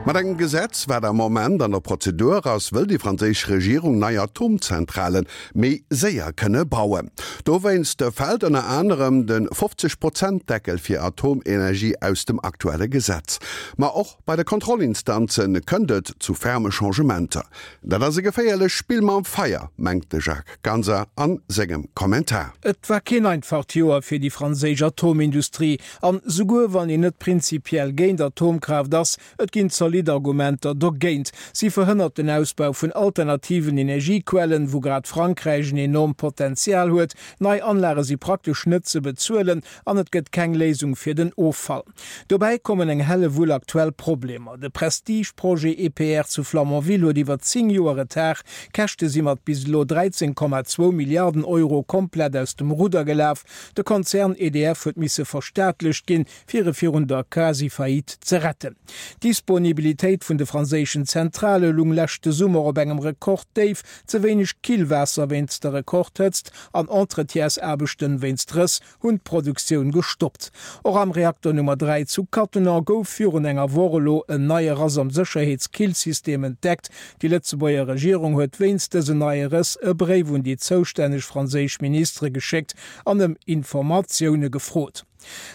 Mat engem Gesetz, wat am Moment an der Prozedur ass, wëll déi franséisch Regierung nei Atomzentrale méi séier kënne bauen. Dowéinst fält ënner anerem de 50 Prozent Deckel fir Atomenergie aus dem aktuelle Gesetz. Ma och bei de Kontrollinstanze kënnt et zu ferme Changementer. Dat ass e geféierlecht Spill mam Feier, mengt de Jacques Ganser a sengem Kommentar. Et war keen einfacht Joer fir déi franséisch Atomindustrie. An souguer wann een net prinzipiell géint Atomkraaft ass, et ginn zolidd Argumenter dogéint. Si verhënnert den Ausbau vun alternativen Energiequellen, wou grad Frankräich en enormt Potenzial huet. Nei Anlage si praktesch net ze bezuelen an et gëtt keng Léisung fir den Offall. Dobäi kommen eng Hellewull aktuell Problemer. De Prestige-Projet EPR zu Flamanville huet iwwer 10 Joer Retard, Käschte si mat bis elo 13,2 Milliarden Euro komplett aus dem Rudder gelaf. De Konzern EDF huet misse verstaatlecht ginn, fir e virun der Quasi-Faillite ze retten. D'Disponibilitéit vun de franséischen Zentrale lung leschte Summer op engem Rekorddéif, ze wéineg Killwaasser wéinst der Rekordhëtzt an Entretiensaarbechten wéinst Rëss hunn d'Produktioun gestoppt. Och am Reakter Nummer 3 zu Cattenom gouf virun enger Woch elo en neie Rass am Sécherheetskillsystem entdeckt. Déi Lëtzebuerger Regierung huet wéinst dësen neie Rëss e Bréif un déi zoustänneg franséisch Ministere geschéckt an ëm Informatioune gefrot.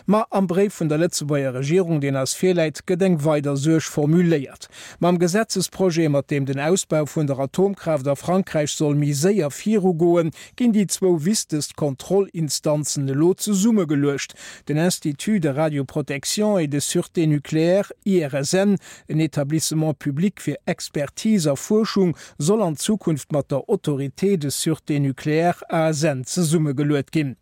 Ma am Bréif vun der Lëtzebuerger Regierung, deen eis virläit, gëtt eng weider Suerg formuléiert. Mam Gesetzesprojet, mat deem den Ausbau vun der Atomkraaft a Frankräich soll méi séier virugoen, ginn déi zwou wichtegst Kontrollinstanzen elo zesummegeluecht, den Institut de radioprotection et de sûreté nucléaire, IRSN, en Établissement public fir Expertise a Fuerschung, soll an Zukunft mat der Autorité de sûreté nucléaire, ASN, zesummegeluet ginn.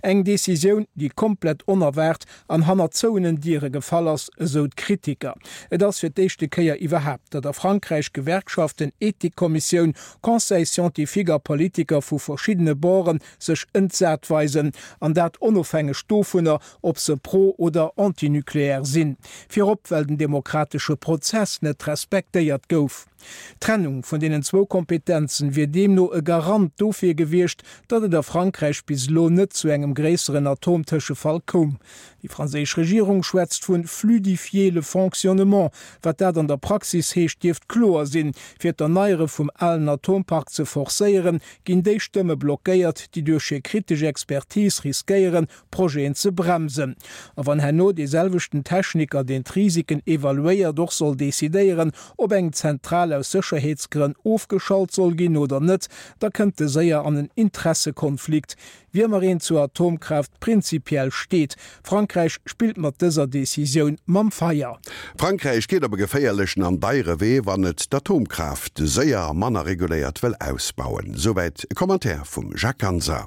Eng Decisioun, déi komplett onerwaart an hannert zouenen Diere gefall ass, esou d'Kritiker. Et ass fir d'éischte Kéier iwwerhaapt, datt a Frankräich Gewerkschaften, Ethikkommissioun, Conseil scientifique a Politiker vu verschiddene Borde sech entsat weisen, an dat onofhängeg dovunner, ob se pro oder antinucléaire sinn. Virop well den demokratesche Prozess net respektéiert gouf. D'Trennung vun deenen zwou Kompetenzen wier deemno e Garant dofir gewiescht, datt et a Frankräich bis elo net zu engem gréisseren Atomtëschefall koum. Déi franséisch Regierung schwätzt vun fluidifier le fonctionnement. Wat dat an der Praxis heescht, dierft kloer sinn. Fir d'Erneiere vum alen Atompark ze forcéieren, ginn déi Stëmme blockéiert, déi duerch hir kritesch Expertise riskéieren, Projeten ze bremsen. A wann herno dee selwechten Techniker, deen d'Risiken evaluéiert, och soll decidéieren, ob eng Zentral aus Sécherheetsgrënn ofgeschalt soll ginn oder net, da kënnt e séier an en Interessekonflikt, wéi ëmmer een zur Atomkraaft prinzipiell steet. Frankräich spillt mat dëser Decisioun mam Feier. Frankräich geet op e geféierlechen an deiere Wee, wann et d'Atomkraaft séier a manner reguléiert wëll ausbauen. Souwäit e Commentaire vum Jacques Ganser.